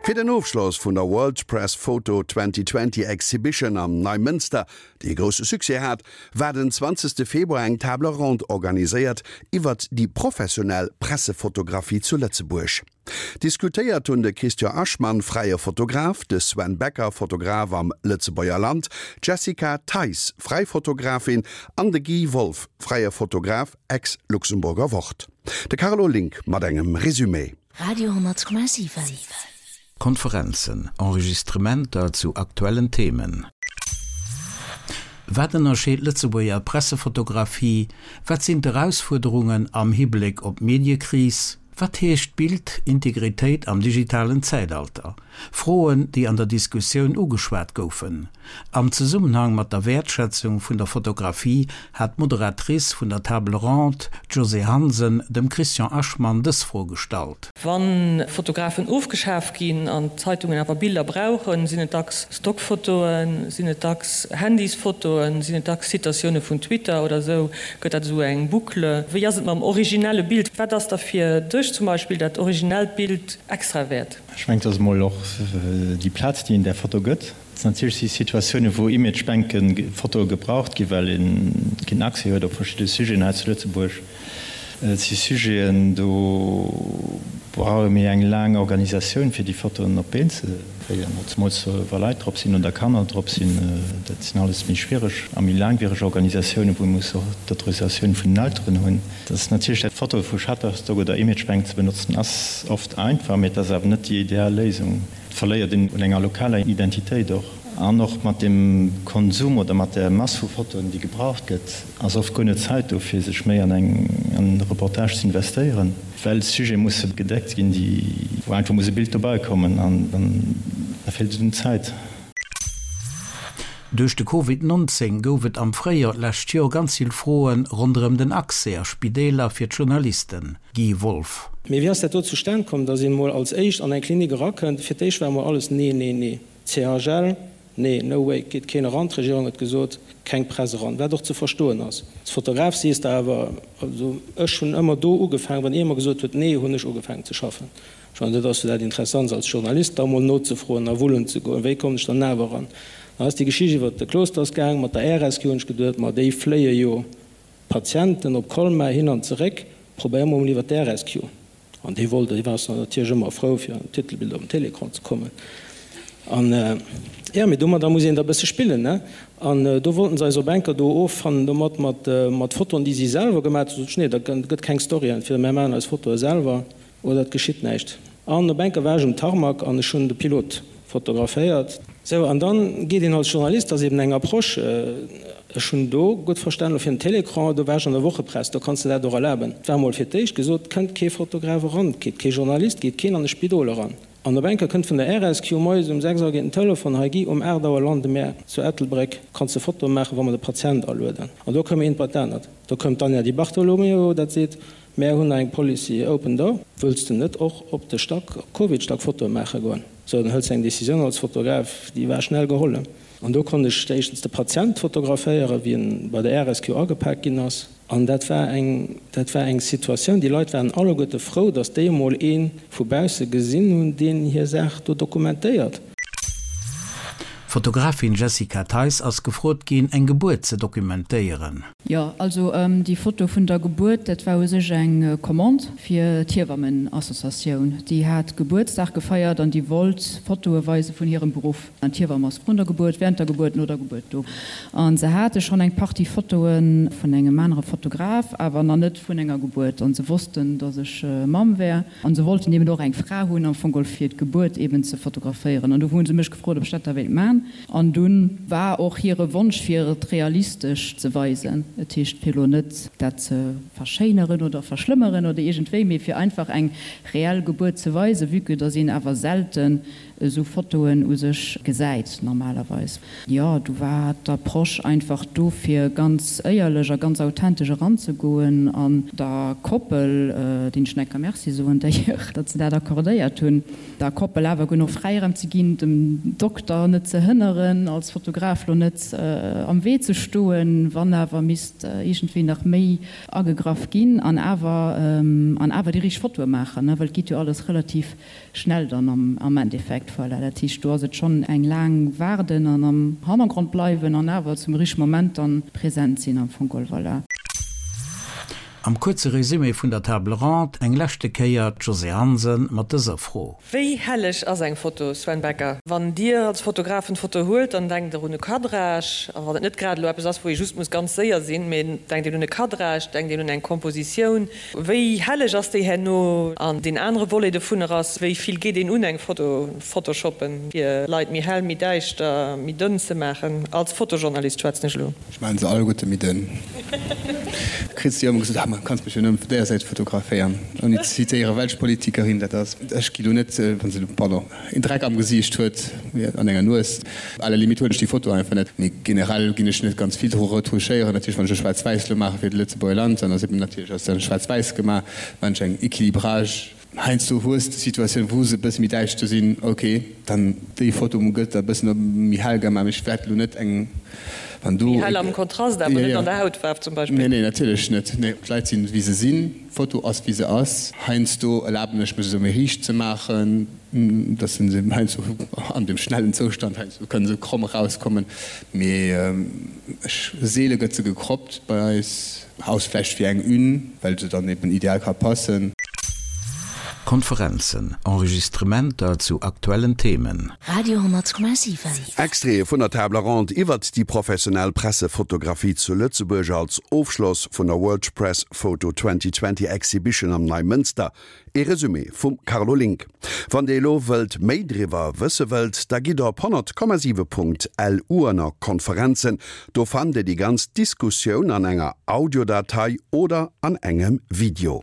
Fir den Ofschloss vun der World Press Photo 2020 Exhibition am Neimënster, déi e grousse Succès hat, war den 20 Februar eng Table ronde organiséiert iwwert déi professionell Pressefotografie zu Lëtzebuerg. Diskutéiert hunn de Christian Aschmann, fräie Fotograf, de Sven Becker, Fotograf am Lëtzebuerger Land, d'Jessica Theis, fräi Fotografin, an de Guy Wolff, fräie Fotograf, ex-Luxemburger Wort. De Carlo Link mat engem Resumé. Radio 10,7. Konferenzen, Enregistrementer zu aktuellen Themen. Wat ënnerscheet d'Lëtzebuerger Pressefotografie? Wat sinn d'Erausfuerderungen am Hibléck op d'Mediekris? Wat heescht Bildintegritéit am digitalen Zäitalter? Froen, déi an der Diskussioun ugeschwat goufen. Am Zesummenhang mat der Wäertschätzung vun der Fotografie hat d'Moderatrice vun der Table ronde, d'Josée Hansen, dem Christian Aschmann dës Fro gestallt. Wa Fotografen ofgeschaf ginn an d'Zeitungen awer Biller brauchen, sinn et dacks Stockfotoen, sinn et dacks Handysfotoen, sinn et dacks Citatioune vun Twitter oder esou, gëtt dat esou eng Boucle. Wéi ass et mam originelle Bild? Wat ass da fir dech zum Beispill dat originellt Bild extra wäert? Ech mengen, et ass emol och déi Plaz, déi een där Foto gëtt. Natierlech si Situatiounen, wou Imagebanke Fotoe gebraucht ginn, well ee keen Accès huet op verschidde Sujeten hei zu Lëtzebuerg. Et si Sujeten, do brauch ee méi eng laang Organisatioun, fir déi Fotoen op d'Been ze kréien, zemools wa Leit drop sinn oder Kanner drop sinn. Dat sinn alles méi schwiereg a méi laangwiereg Organisatiounen, wou ee muss och d'Autorisatioun vun den Elteren hunn. Dat ass natierlech dat Fotoe vu Shutterstock oder Imagebank ze benotzen ass oft einfach, mee et ass awer net déi ideal Léisung. Et verléiert een un enger lokaler Identitéit och. An och mat dem Konsum oder mat der Mass vu Fotoen, déi gebraucht gëtt, ass oft guer net Zäit do, fir sech méi an eng an e Reportage ze investéieren, well Sujete musse gedeckt ginn, déi wou einfach muss e Bild dobäi kommen an dann da feelt et un Zäit. Duerch de Covid 19 gouf et am Fréijoer d'lescht Joer ganz vill Froe ronderëm den Accès a Spideeler fir d'Journalisten. Guy Wolff. Mee wéi ass dat do zustan komm, datt een emol als éischt an eng Klinik erakënnt? Fir d'éischt war emol alles nee, nee, nee. CHL, nee, no way, geet keen eran. D'Regierung huet gesot, keng Press eran, wat och ze verstoen ass. Als Fotograf sees de awer, also ech hunn ëmmer do ugefaangen, wann ee mer gesot huet nee, hunn ech ugefaangen ze schaffen. Ech mengen, dat ass jo dat Interessantst als Journalist, da mol nozefroen a wullen ze goen, wéi kommen ech dann awer eran? Dann ass déi Geschicht iwwert de Klosters gaang mat der Air Rescue, hunn ech geduet, ma déi fléie jo Patienten op Colmar hin an zeréck, probéier mol iwwer d'Air Rescue. An dee wollt, dee war natierlech ëmmer frou fir an d'Titelbild op den Télécran ze kommen. An jo, mee domadder muss een da bësse spillen, ne? An do wollten se eis op enker do offannen domat, mat mat Fotoen, déi si selwer gemaat hunn. Sot ech, nee, da gëtt keng Story, entweder mär maachen eis Fotoe selwer Oder et geschitt näischt. An op enker war ech um Tarmac an ech hunn de Pilot fotograféiert. Sou, an dann geet een als Journalist, dat ass eben eng Approche, ech hunn do gutt verstanen, elo fir den Télécran, do war ech an der Wochepress, do kanns de dat och erlaben. Et war emol fir d'éischt gesot, kënnt kee Fotograf eran, geet kee Journalist, geet keen an e Spidol eran. An op enker kënnt vun der RSQ moies um 6 Auer geet den Telefon, hei Guy, um 8 Auer lande mär zu Ettelbréck, kanns de Fotoe maachen, wa mer de Patient alueden. An do koum eent bei d'anert. Do koum d'Anja Di Bartolomeo, dat seet, Mär hunn eng Policy Open Door. Wëlls de net och op de Stack, op Covidstack Fotoe maache goen? Sou, dann hëls de eng Decisioun als Fotograf, déi war schnell geholl. An do konnt ech éischtens de Patient fotograféieren, wéi en bei der RSQ agepak ginn ass. An dat war eng, dat war eng Situatioun, déi Leit waren alleguerte frou, datt déi emol ee vu bausse gesinn hunn, deen hir Saach do dokumentéiert. D'Fotografin Jessica Theis ass gefrot ginn, eng Gebuert ze dokumentéieren. Jo, also déi Foto vun der Gebuert, dat war u sech eng Commande fir d'Hiewammenassociatioun. Déi hat Gebuertsdag gefeiert an déi wollt Fotoe weise vun hirem Beruff. An d'Hiewamm ass vrun der Gebuert, während der Gebuert, no der Gebuert do. A se hate schonn eng Partie Fotoe vun engem anere Fotograf, awer nach net vun enger Gebuert. An se wossten, datt ech Mamm wär. An se wollten eben och eng Fra hunn am Fong geholl fir d'Gebuert eben ze fotograféieren. An do hu se mech gefrot, ob ech dat da wéilt man. An dunn war och hire Wonsch fir et realistesch ze weisen, et heescht fir elo net dat ze verschéineren oder verschlëmmeren oder iergendwéi, mee fir einfach eng reell Gebuert ze weisen, vue que dass een awer selten. esou Fotoen u sech gesäit normalerweis. Jo, do war d'Approche einfach do fir ganz éierlech a ganz authentesch eranzegoen an der Koppel, deenen ech nach eng Kéier Merci soen d'ailleurs, datt se dat accordéiert hunn, der Koppel awer genuch Fräiraum ze ginn, dem Dokter net ze hënneren, als Fotograf lo net am Wee ze stoen, wann awer misst iergendwéi nach méi agegraff ginn an awer an awer déi richteg Fotoe maachen, well et geet jo alles relativ schnell dann am Endeffekt. Voilà, dat heescht, do ass et schonn eng laang Waarden an am Hannergrond bleiwen an awer zum richtege Moment dann present sinn am Fong geholl. Voilà. Am kuerze Résumé vun der Table ronde eng leschte Kéier d'Josée Hansen mat dëser Fro. Wéi helleg ass eng Foto, Sven Becker? Wann Dir als Fotograf en Foto huelt, dann denkt Der un e Cadrage, a wann et net grad elo eppes ass, wou ee just muss ganz séier sinn, mee denkt een un e Cadrage, denkt een un eng Kompositioun. Wéi helleg ass déi herno? An deen anere Volet dovunner ass, wéi vill geet een un eng Foto photoshoppen, fir Leit méi hell, méi däischter, méi dënn ze maachen? Als Fotojournalist schwätzen ech elo. Ech maachen se alleguerte méi dënn. Kriss de jo ëmmer gesot, ah ma kanns mech jo nëmmen vun där Säit fotograféieren, ouni ze zitéieren, welch Politikerin dat ass. Ech gi lo net, wann se, pardon, een Dreck am Gesiicht huet, an enger Nues, à la limite huelen ech déi Foto einfach net. Mee generell ginn ech net ganz vill dru retouchéieren. Natierlech wann ech e Schwaarz-Wäiss lo maache fir de Lëtzebuerger Land, dann ass eben natierlech ass dann Schwaarz-Wäiss gemaach. Wann ech eng Equilibrage, heiansdo hues de Situatioun wou se e bësse méi däischter sinn, ok, dann déi Foto gëtt da e bëssen méi hell gemaach, mee ech wäert lo net eng, wann do. Méi hell am Kontrast, awer net an der Hautfaarf zum Beispill. Nee, nee, natierlech net. Nee, d'Leit sinn wéi se sinn. D'Foto ass wéi se ass. Heiansdo erlaben ech mech se méi riicht ze maachen, dass se heiansdo an dem schnellen Zoustand heiansdo kënne se kromm erauskommen, mee ech seele gëtt se gecroppt bei eis, aus vläicht fir eng Une, well se dann eben ideal ka passen. Konferenzen, Enregistrementer zu aktuellen Themen. Radio 10,7. Extraite vun der Table Ronde iwwert déi professionell Pressefotografie zu Lëtzebuerg als Ofschloss vun der World Press Photo 2020 Exhibition am Neimënster. Ee Resumé vum Carlo Link. Wann Dir elo wëllt méi driwwer wësse wëllt, da gitt op 100,7.lu ënner Konferenzen. Do fannt Dir déi ganz Diskussioun an enger Audiodatei oder an engem Video.